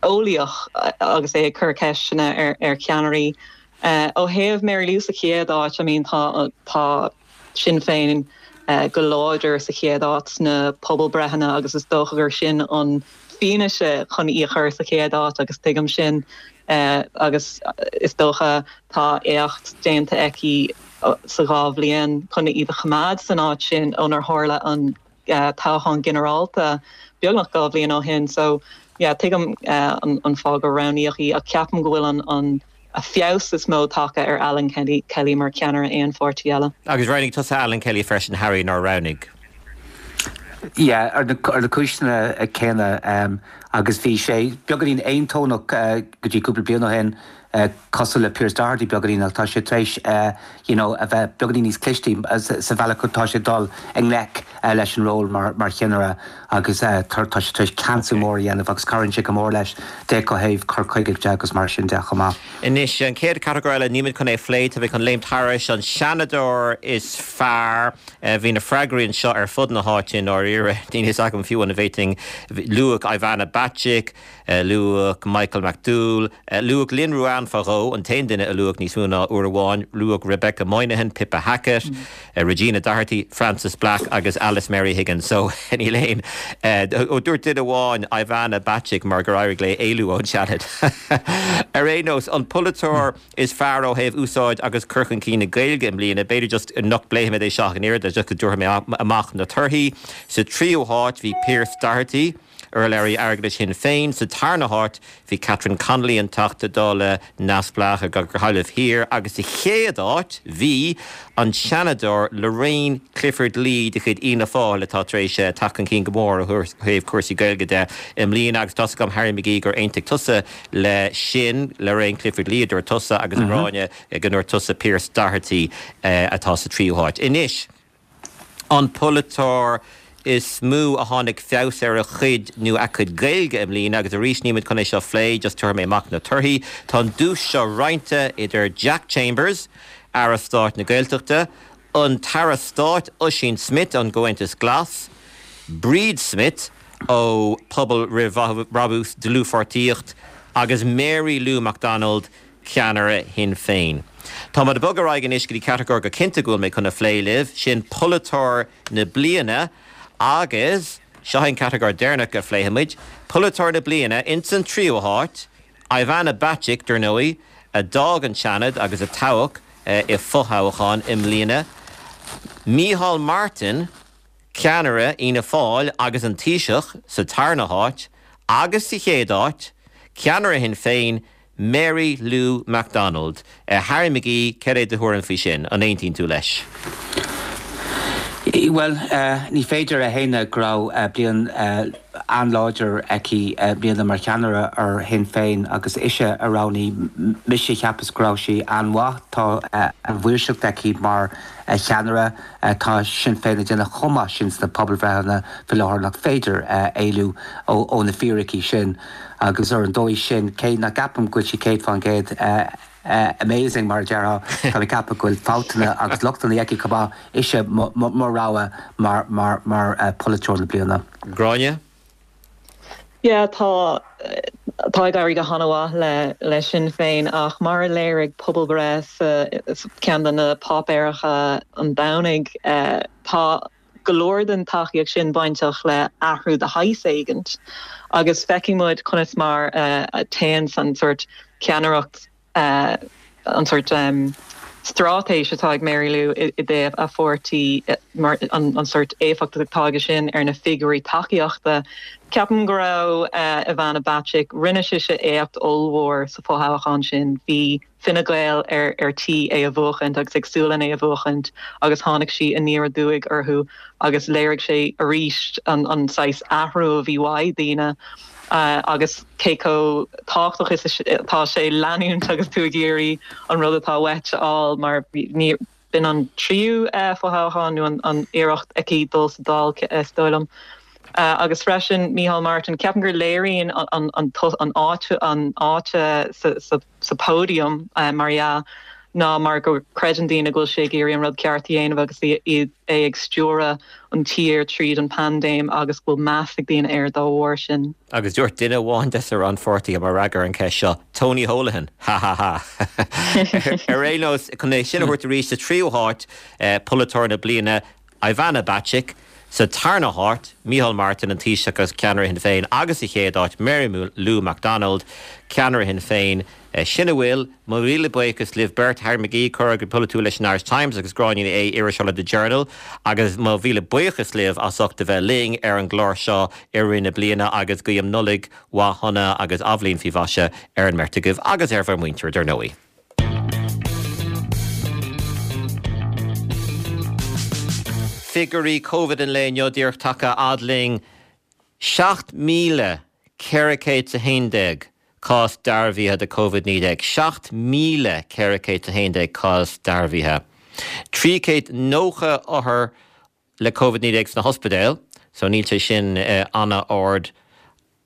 eolaíoch agus é ag cur ceisteanna ar cheannairí. Ó thaobh Mary Lou sa chéad áit, I mean tá, tá. Sinn Féin go láidir sa chéad áit sna pobalbreitheanna agus is dócha gur sin an fianaise chun í a chur sa chéad áit agus tuigim sin agus is dócha tá éacht déanta aici sa dhá bhliain chun iad a choimeád san áit sin ónar tharla an toghchán ginearálta beagnach 2 bhliain ó shin. So yeah tuigim an fáth gur roghnaíodh í ach ceapaim go bhfuil an feabhas is mó tagtha ar Alan Kelly mar cheannaire aon pháirtí eile. Agus roghnaigh tusa Alan Kelly freisin Harry, nár roghnaigh? Yeah, ar na cúiseanna céanna agus bhí sé beagáinín aontónach go dtí cúpla bliain ó shin cosúil le Pearse Doherty beagáinín ach tá sé tar éis you know a bheith beagáinín níos clistí sa bhealach atá sé ag dul i ngleic leis an ról mar mar cheannaire agus tá sé tar éis ceansú mór a dhéanamh agus cabhraíonn sé go mór leis d'fhéach ó thaobh cur chuige de agus mar sin de chomh maith. Anois, an chéad chatagóir eile, nílimid chun é a phlé, tá mé chun léimt thairis, an Seanadóir is fearr. Bhí na freagraí anseo ar fud na háite i ndáiríre. Níl a fhios agam fiú an bhféadfainn, luadh Ivana Bacik, Luadh Michael McDowell. Luadh Lynn Ruane fá dhó, an t-aon duine a luadh níos mó ná uair amháin. Luadh Rebecca Moynihan, Pippa Hackett, Regina Doherty, Frances Black agus Alice Mary Higgins. So, níl aon. Ó, dúirt duine amháin Ivana Bacik mar gur éirigh léi éalú ón Seanad. Ar aon nós, an polaiteoir is fearr ó thaobh úsáid agus cur chun cinn na Gaeilge i mbliana, b'fhéidir just nach bpléifimid é seo ach an oiread, just go dtabharfaidh mé amach na torthaí. Sa tríú háit bhí Pearse Doherty. Urlabhraí Airgeadais Shinn Féin. Sa tarna háit bhí Catherine Connolly, an Teachta Dála neamhspleách ar Ghaillimh Thiar agus sa chéad áit bhí an Seanadóir Lorraine Clifford-Lee de chuid Fhianna Fáil atá tar éis teacht chun cinn go mór ó thaobh cúrsaí Gaeilge de i mbliana agus tá's agam Harry McGee gur aontaigh tusa le sin, Lorraine Clifford-Lee a dúirt tusa agus a Ghráinne go ndúirt tusa Pearse Doherty atá sa tríú háit. Anois. An polaiteoir is mó a tháinig feabhas ar a chuid nó a cuid Gaeilge i mbliana, agus arís nílimid chun é seo a phlé, just tabharfaidh mé amach na torthaí. Tá an duais seo roinnte idir Jack Chambers, Aire Stáit na Gaeltachta, an tAire Stáit Ossian Smyth ón gComhaontas Glas, Bríd Smith ó Pobal Roimh Bhrabús, Dlúthpháirtíocht, agus Mary Lou McDonald, ceannaire Shinn Féin. Táimid ag bogadh ar aghaidh anois go dtí catagóir go cinnte go bhfuil mé chun a phlé libh, sin Polaiteoir na Bliana agus seo é an catagóir deireanach a phléifimid, Polaiteoir na Bliana, ins an tríú háit, Ivana Bacik, dar ndóigh, a d'fhág an Seanad agus a toghadh i fothoghchán i mbliana, Micheál Martin, ceannaire Fhianna Fáil agus an Taoiseach, sa tarna háit, agus sa chéad áit, ceannaire Shinn Féin, Mary Lou McDonald. Harry McGee, céard é do thuairim faoi sin? An aontaíonn tú leis? Bhuel, ní féidir a shéanadh go raibh bliain an-láidir aici i mbliana mar cheannaire ar Shinn Féin agus ise a roghnaigh mise. Cheapas go raibh sí an-mhaith. Tá an-mhaoirseacht aici mar cheannaire. Tá Sinn Féin ag déanamh chomh maith sin sna pobalbhreitheanna faoi láthair nach féidir éalú ó na fíricí sin. Agus ar an dóigh sin, cé nach gceapaim go bhfuil sí 100% amazing, mar a déarfá, tá mé ag ceapadh go bhfuil fabhtanna agus lochtanna aici chomh maith, ise mo rogha mar pholaiteoir na bliana. Gráinne? Yeah, tá, tá ag éirí go han-mhaith le le Sinn Féin ach mar a léirigh pobalbhreith sa ceann de na páipéaracha an Domhnaigh, tá go leor den tacaíocht sin bainteach le athrú de shaghas éigint agus feicfidh muid conas mar a téann an sórt ceannaireacht, an sórt. straitéis atá ag Mary Lou i dtaobh a pháirtí mar an sórt éifeacht atá aige sin ar na figiúirí tacaíochta. Ceapaim go raibh Ivana Bacik, rinne sise éacht ollmhór sa fhothoghchán sin. Bhí Fine Gael ar ar tí é a bhuachaint agus ag súil len é a bhuachaint agus tháinig sí aniar aduaidh orthu agus léirigh sé arís an an saghas athrú a bhí uaidh daoine agus cé chomh tábhachtach is atá sé leanúint agus tú ag iarraidh an rud atá uait a fháil mar ní b'in an tríú fothoghchán nó an iarracht aici dul sa Dáil is dóigh liom. Agus freisin Micheál Martin, ceapaim gur léiríonn an an áit an áit sa sa pódium mar dhea ná mar go creideann daoine go bhfuil sé ag iarraidh an rud ceart a dhéanamh agus é ag stiúradh an tír tríd an paindéim agus go bhfuil meas ag daoine air dá bharr sin. Agus dúirt duine amháin des na rannpháirtithe mar fhreagra ar an cheist seo, Tony Holohan! Ha ha ha! Ar aon nós, chun é sin a thabhairt arís, sa tríú háit, Polaiteoir na Bliana, Ivana Bacik, sa tarna háit, Micheál Martin, an Taoiseach agus ceannaire Shinn Féin agus sa chéad áit, Mary Lou McDonald, ceannaire Shinn Féin. Sin a bhfuil. Mo mhíle buíochas libh beirt, Harry McGee, comhfhreagraí polaitiúil leis an Irish Times agus Gráinne Ní Aodha, iriseoir le The Journal. Agus mo mhíle buíochas libh as ucht a bheith linn ar an gclár seo i rith na bliana agus guím Nollaig mhaith shona agus athbhliain faoi mhaise ar an mbeirt agaibh agus ar bhur muintir, dar ndóigh. Figiúirí Covid an lae inniu díreach tagtha fhad linn, 7,411 cás dearbhaithe de Covid-19, 7,411 cás dearbhaithe, 390 othar le Covid-19 sna hospidéil, so níl sé sin an-ard,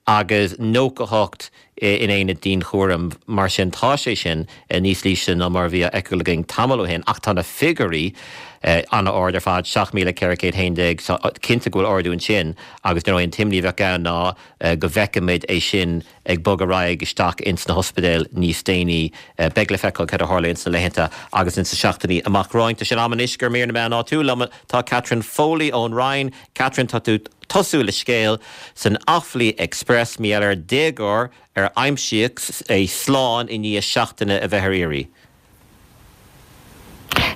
agus 98 in aonad dianchúraim. Mar sin, tá sé sin níos ísle ná mar a bhí á fheiceáil againn tamall ó shin, ach tá na figiúirí an-ard ar fad, 7,411, so cinnte go bhfuil ardú ansin agus dar ndóigh an t-imní a bheadh ann ná go bhfeicfimid é sin ag bogadh ar aghaidh isteach ins na hospidéil níos déanaí. Beidh le feiceáil céard a tharlaíonn sna laethanta agus ins na seachtainí amach romhainn. Tá sé in am anois gur mír na meán áitiúil liom. Tá Catherine Foley ón Rinn. Catherine, tá tú tosú le scéal san Offaly Express mar gheall ar déagóir ar aimsíodh é slán i ndiaidh seachtaine a bheith ar iarraidh.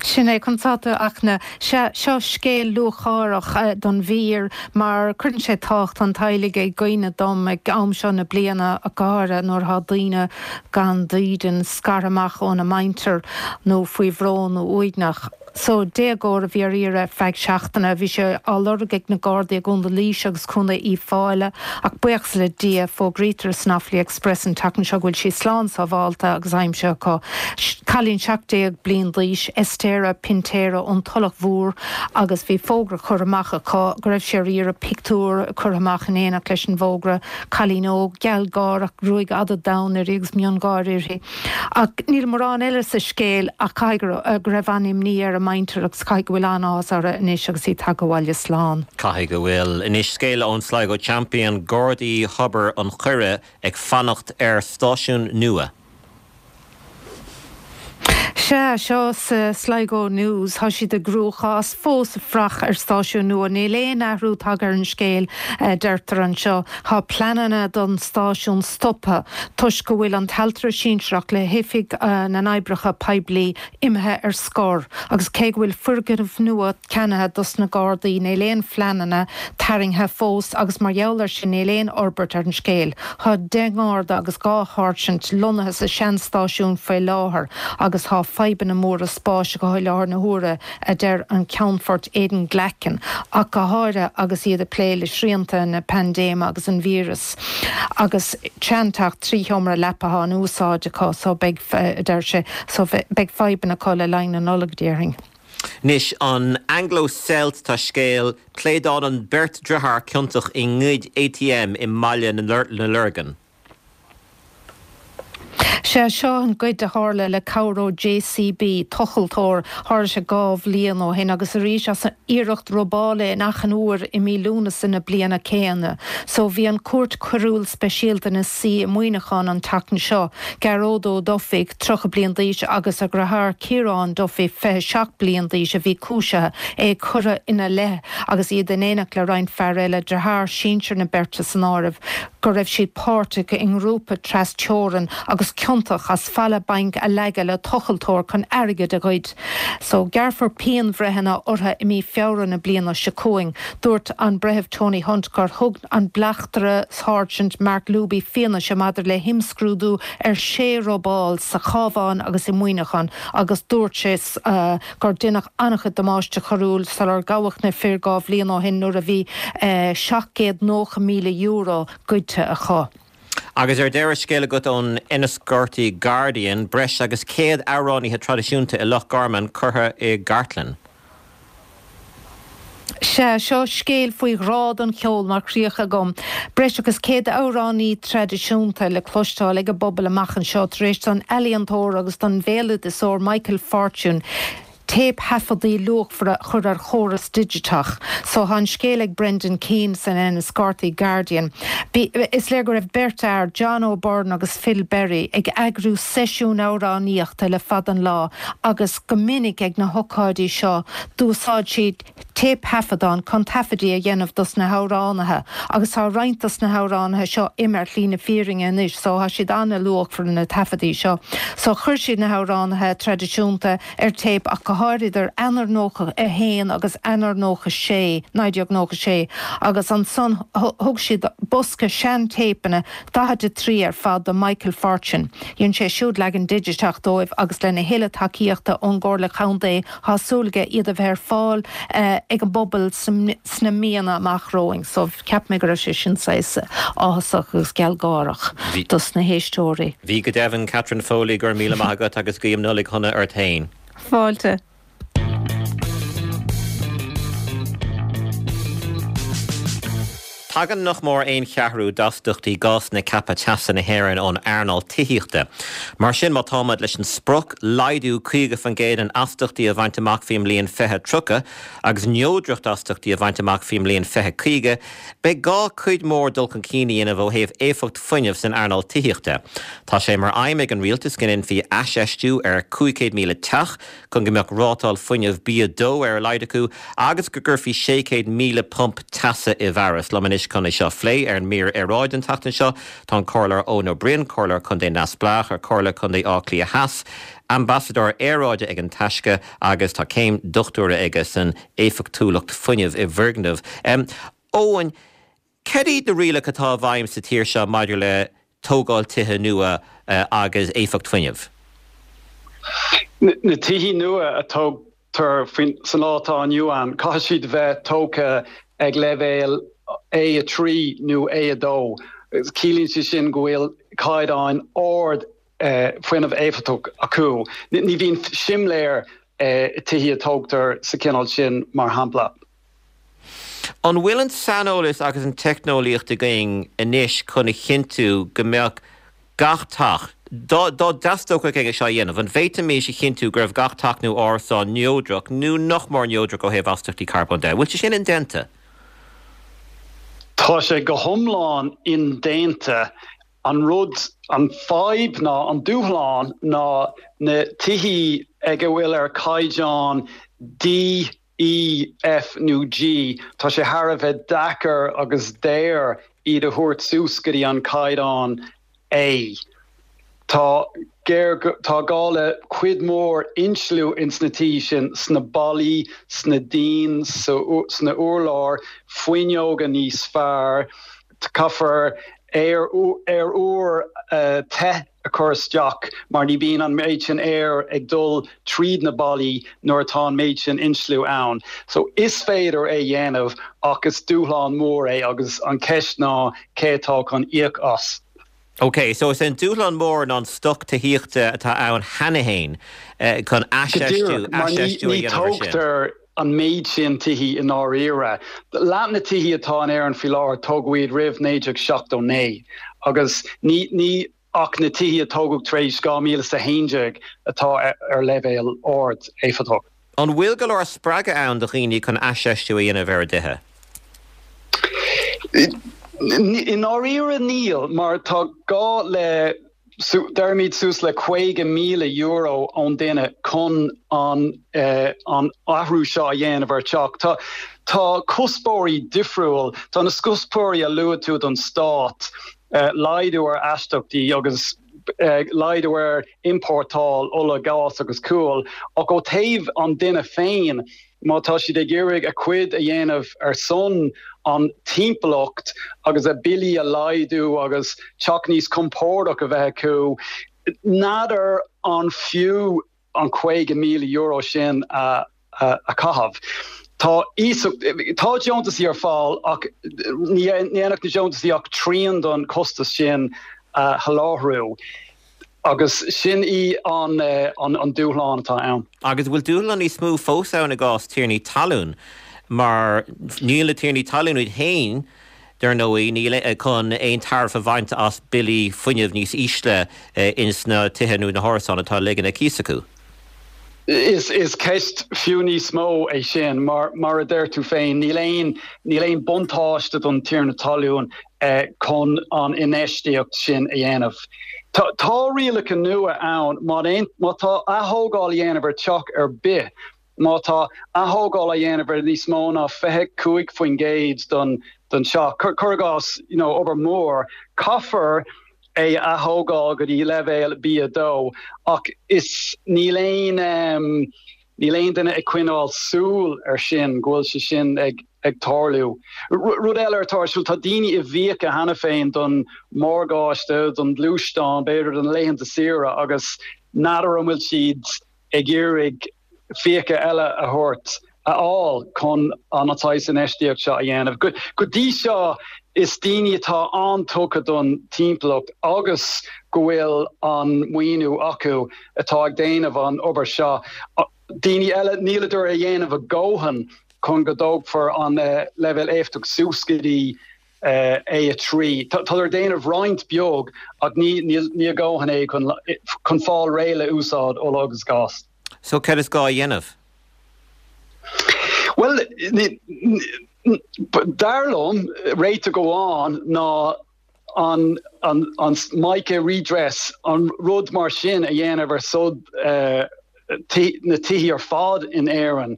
Sin é, conas tá tú, a Fhachtna. Sea, seo scéal lúcháireach don mhír mar cuireann sé tábhacht an teaghlaigh i gcuimhne dom ag am seo na bliana, go háirithe nuair atá daoine gan dídean, scartha amach óna muintir nó faoi bhrón nó uaigneach. So, déagóir a bhí ar iarraidh ar feadh seachtaine. Bhí sé á lorg ag na Gardaí i gContae Laoise agus Contae Uíbh Fhailí ach buíochas le Dia, fógraítear san Offaly Express an tseachtain seo go bhfuil sí slán sábhálta agus aimsithe acu. Cailín 17 bliain d'aois, Estera Pintera ón Tulach Mhór agus bhí fógra curtha amach acu go raibh sí ar iarraidh, pictiúr curtha amach in éineacht leis an bhfógra, cailín óg, gealgháireach, gruaig fhada donn uirthi agus miongháire uirthi. Ach níl mórán eile sa scéal ach caithfidh go raibh an-imní ar a muintir agus caithfidh go bhfuil an-áthas orthu anois agus í tagtha abhaile slán. Caithfidh go bhfuil. Anois scéal ón Sligo Champion, Gardaí Thobar an Choire ag fanacht ar stáisiún nua. Sea, seo sa Sligo News. Tá siad i gcruachás fós ag fuireach ar stáisiún nua. Níl aon athrú tagtha ar an scéal, a deirtear anseo. Tá pleananna don stáisiún stoptha toisc go bhfuil an t-ailtire sinsearach le hOifig na nOibreacha Poiblí imithe ar scor agus cé go bhfuil foirgneamh nua ceannaithe dos na Gardaí níl aon phleananna tarraingthe fós agus mar gheall ar sin níl aon fhorbairt ar an scéal. Tá 10 nGarda agus 2 sháirsint lonnaithe sa sean-stáisiún faoi láthair agus tá fadhbanna móra spáis acu i láthair na huaire, a deir an Ceannfort Aidan Glackin, ach go háirithe agus iad ag plé le srianta na paindéime agus an víreas. Agus seanteach 3 sheomra leapa atá in úsáid acu so beidh, a deir sé, so beidh fadhbanna acu le linn na Nollag, déarfainn. Anois, an Anglo Celt, tá scéal, Pléadálann beirt driotháir ciontach i ngoid ATM i mBaile na Lorgan. Sea, seo an goid a tharla le cabhair ó JCB, tochaltóir. Tharla sé 2 bhliain ó shin agus arís as iarracht robála in Achadh an Iúir i mí Lúnasa na bliana céanna. So bhí an Chúirt Choiriúil Speisialta ina suí i Muineachán an tseachtain seo. Gearóid Ó Dufaigh, 30 bliain d'aois, agus a dheartháir Ciarán Duffy, 27 bliain d'aois, a bhí cúisithe, é curtha ina leith agus iad in éineacht le roinnt fear eile, deartháir sinsir na beirte san áireamh, go raibh siad páirteach i ngrúpa tras-teorann agus. ciontach as falla bainc a leagadh le tochaltóir chun airgead a ghoid. So, gearrfar pianbhreitheanna orthu i mí Feabhra na bliana seo chugainn. Dúirt an Breitheamh Tony Hunt gur thug an Bleachtaire Sáirsint Mark Luby fianaise maidir le himscrúdú ar shé robáil sa Chabhán agus i Muineachán agus dúirt sé gur deineadh an-chuid damáiste coiriúil sular gabhadh na fir 2 bhliain ó shin nuair a bhí €790,000 goidte acu. Agus ar deireadh, scéal agat ón Enniscorthy Guardian, breis agus 100 amhránaithe traidisiúnta i Loch Garman curtha i gcartlann. Sea, seo scéal faoi ghrá don cheol mar chríoch agam. Breis agus 100 amhránaí traidisiúnta le cloisteáil ag an bpobal amach anseo tar éis don ealaíontóir agus don bhéaloideasóir Michael Fortune téipthaifeadtaí luachmhara a chur ar chóras digiteach. So tá an scéal ag Brendan Keane san Enniscorthy Guardian. Is léir go raibh beirt fhear, John O'Byrne agus Phil Berry, ag eagrú seisiún amhránaíochta le fada an lá agus go minic ag na hocáidí seo d'úsáid siad téipthaifeadán chun taifeadaí a dhéanamh dos na hamhránaithe agus tá roinnt dos na hamhránaithe seo imithe ar shlí na fírinne anois so tá siad an-luachmhar na taifeadaí seo. So chuir siad na hamhránaithe traidisiúnta ar téip ach go háirid idir Eanáir 91 agus Eanáir 96, 1996 agus ansan thug siad bosca sean-téipeanna, 43 ar fad, do Michael Fortune. Dhein sé siúd leagan digiteach dóibh agus lena thuilleadh tacaíochta ón gComhairle Contae Tá súil aige iad a bheith ar fáil ag an bpobal sna míonna amach romhainn so cheap mé go raibh sé sin saghas áthasach agus gealgháireach dos na héisteoirí. Bhí go deimhin, Catherine Foley, go raibh míle maith agat agus guím Nollaig shona ort féin. Fáilte. Tagann nach mór aon cheathrú d'astaíochtaí gásanna ceaptha teasa na hÉireann ón earnáil tithíochta. Mar sin, má táimid leis an sprioc laghdú 50% in astaíochtaí a bhaint amach faoin mbliain 2030 agus neodracht astaíochtaí a bhaint amach faoin mbliain 2050, beidh gá cuid mhór dul chun cinn a dhéanamh ó thaobh éifeacht fuinnimh san earnáil tithíochta. Tá sé mar aidhm ag an rialtas go ndéanfaí aisfheistiú ar 500,000 teach chun go mbeadh rátáil fuinnimh B2 ar a laghad acu agus go gcuirfí 600,000 pump teasa i bhfearas. Liom anois chun é seo a phlé ar an mír aeráide an tseachtain seo tá an Comhairleoir Eoin Ó Broin, Comhairleoir Contae Neamhspleách ar Chomhairle Contae Átha Cliath Theas, Ambasadóir Aeráide ag An Taisce agus tá céim dochtúra aige san éifeachtúlacht fuinnimh i bhfoirgnimh. Eoin, Cad iad na rialacha atá i bhfeidhm sa tír seo maidir le tógáil tithe nua agus éifeacht fuinnimh? Na tithe nua a tógtar sa lá atá inniu ann, caithfidh siad a bheith tógtha ag leibhéal A3 nó A2. Ciallaíonn sé sin go bhfuil caighdeán ard fuinneamh éifeachtach acu. Ní bhíonn simléar i tithe a tógtar sa chineál sin, mar shampla. An bhfuil an saineolas agus an teicneolaíocht againn anois chun a chinntiú go mbeadh gach teach, dá dteastódh é seo a dhéanamh, an bhféadfaimis a chinntiú go raibh gach teach nó árasán neodrach nó nach mór neodrach ó thaobh astaíochtaí carbóin de? An bhfuil sé sin indéanta? Tá sé go hiomlán indéanta. An rud, an fadhb ná, an dúshlán ná na tithí ag a bhfuil ar caighdeán D, E, F nó G, tá sé thar a bheith deacair agus daor iad a thabhairt suas go dtí an caighdeán A. Tá géar, tá gá le cuid mhór insliú ins na tithe sin, sna ballaí, sna díon, sna urláir, fuinneoga níos fearr, caithfear aer, aer úr te a chur isteach mar ní bhíonn an méid sin aeir ag dul tríd na ballaí nuair atá an méid sin insliú ann. So is féidir é dhéanamh ach is dúshlán mór é agus an cheist ná cé atá chun íoc as. Ok, so is é an dúshlán mór ná an stoc tithíochta atá ann cheana féin chun aisfheistiú, aisfheistiú a dhéanamh ar sin. Go díreach, mar ní tógtar an méid sin tithí i ndáiríre. Leath na tithí atá in Éirinn faoi láthair, tógadh iad roimh 1979 agus ní, ní ach na tithí a tógadh tar éis 2011 atá ar leibhéal ard éifeachtach. An bhfuil go leor spreagadh ann do dhaoine chun aisfheistiú a dhéanamh ar a dtithe? I ndáiríre níl, mar tá gá le deirimid suas le €50,000 ón duine chun an an athrú seo a dhéanamh ar teach. Tá tá cuspóirí difriúil, tá na cuspóirí a luaigh tú don stát, laghdú ar astaíochtaí agus. laghdú ar iompórtáil ola, gás agus gual, ach ó taobh an duine féin, má tá siad ag iarraidh a cuid a dhéanamh ar son an timpeallacht agus a billí a laghdú agus teach níos compordach a bheith acu, n'fheadar an fiú an €50,000 sin a chaitheamh. Tá iasacht, tá deontasaí ar fáil ach ní dhéanfadh na deontasaí ach trian don chostas sin a sholáthrú agus sin í an dúshlán atá ann. Agus bhfuil dúshlán níos mó fós ann i gcás tiarnaí talún mar níl na tiarnaí talún iad féin Dar ndóigh, níl chun aon tairbhe a bhaint as billí fuinnimh níos ísle ins na tithe nó na hárasáin atá á ligean ar cíos acu. Is ceist fiú níos mó é sin, mar, mar a deir tú féin, níl aon, níl aon buntáiste don tiarna talún chun an infheistíocht sin a dhéanamh. Tá rialacha nua ann, má má tá athógáil a dhéanamh ar teach ar bith, Má tá athógáil á dhéanamh ar níos mó ná 25% den teach, cuir i gcás, you know, obair mhór, caithfear é a athógáil go dtí leibhéal B2 ach is níl aon níl aon duine ag coinneáil súil ar sin, go bhfuil sé sin ag ag tarlú. Rud eile atá ar siúl, tá daoine i bhfiacha cheana féin don mhorgáiste, don ghluaisteán, b'fhéidir do na laethanta saoire agus n'fheadar an bhfuil siad ag iarraidh fiacha eile a thabhairt, a fháil chun an saghas infheistíocht seo a dhéanamh. Go dtí seo is daoine atá an-tugtha don timpeallacht agus go bhfuil an maoiniú acu atá ag déanamh an obair seo. Daoine eile, níleadar a dhéanamh a dhóthain chun go dtógfar an leibhéal éifeachtacht suas go dtí A3. Tádar ag déanamh roinnt beag ach ní a dhóthain é chun fáil réidh le úsáid ola agus gás. So céard is gá a dhéanamh? Bhuel, dar liom, réiteach amháin ná an MICA redress, an rud mar sin a dhéanamh ar son na tithí ar fad in Éirinn.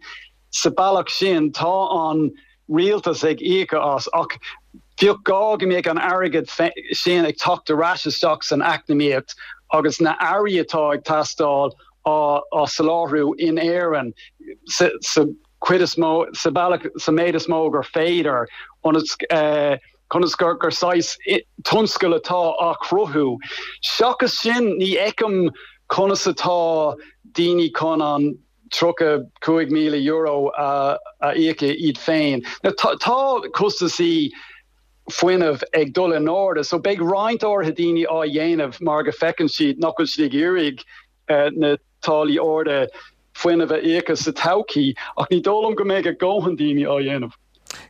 Sa bealach sin, tá an rialtas ag íoc as, ach bheadh gá go mbeadh an airgead sin ag teacht ar ais isteach san eacnamaíocht agus na earraí atá ag teastáil á soláthrú in Éirinn sa chuid is mó, sa bhealach, sa méid is mó gur féidir, ionas conas gur gur saghas tionscal atá á chruthú. Seachas sin, ní fheicim conas atá daoine chun an. €35,000 a íoc iad féin. Now tá costasaí fuinnimh ag dul in airde so beidh roinnt áirithe daoine á dhéanamh mar go bhfeiceann siad nach bhfuil siad ag iarraidh na táillí arda fuinnimh a íocadh sa todhchaí ach ní dóigh liom go mbeidh a dhóthain daoine á dhéanamh.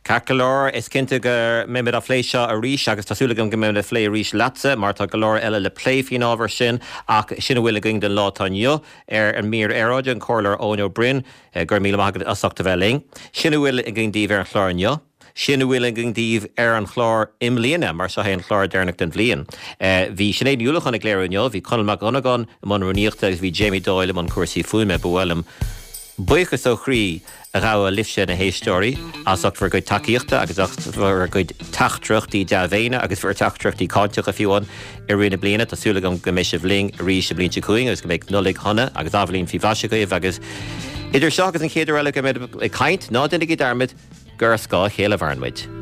Ceart go leor, is cinnte go mbeimid á phlé seo arís agus tá súil agam go mbeimid á phlé arís leatsa mar tá go leor eile le plé faoin ábhar sin ach sin a bhfuil againn don lá atá inniu ar an mír aeráide, an Comhairleoir Eoin Ó Broin, go raibh míle maith agat as ucht a bheith linn. Sin a bhfuil againn daoibh ar an chlár inniu. Sin a bhfuil againn daoibh ar an chlár i mbliana mar seo é an clár deireanach den bhliain. Bhí Sinéad Ní Uallacháin ag léiriú inniu, bhí Conall Mac Dhonnagáin i mbun rúnaíochta agus bhí Jamie Doyle i mbun cúrsaí fuaime. Ba mhaith liom buíochas ó chroí a ghabháil libhse, na héisteoirí, as ucht bhur gcuid tacaíochta agus as bhur gcuid teachtaireachtaí dea-mhéine agus bhur dteachtaireachtaí cáinteacha fiú amháin i rith na bliana. Tá súil agam go mbeidh sibh linn arís an bhliain seo chugainn agus go mbeidh Nollaig shona agus athbhliain faoi mhaise agaibh agus idir seo agus an chéad uair eile go mbeidh ag caint, ná déanaigí dearmad gur ar scáth a chéile a mhaireann muid.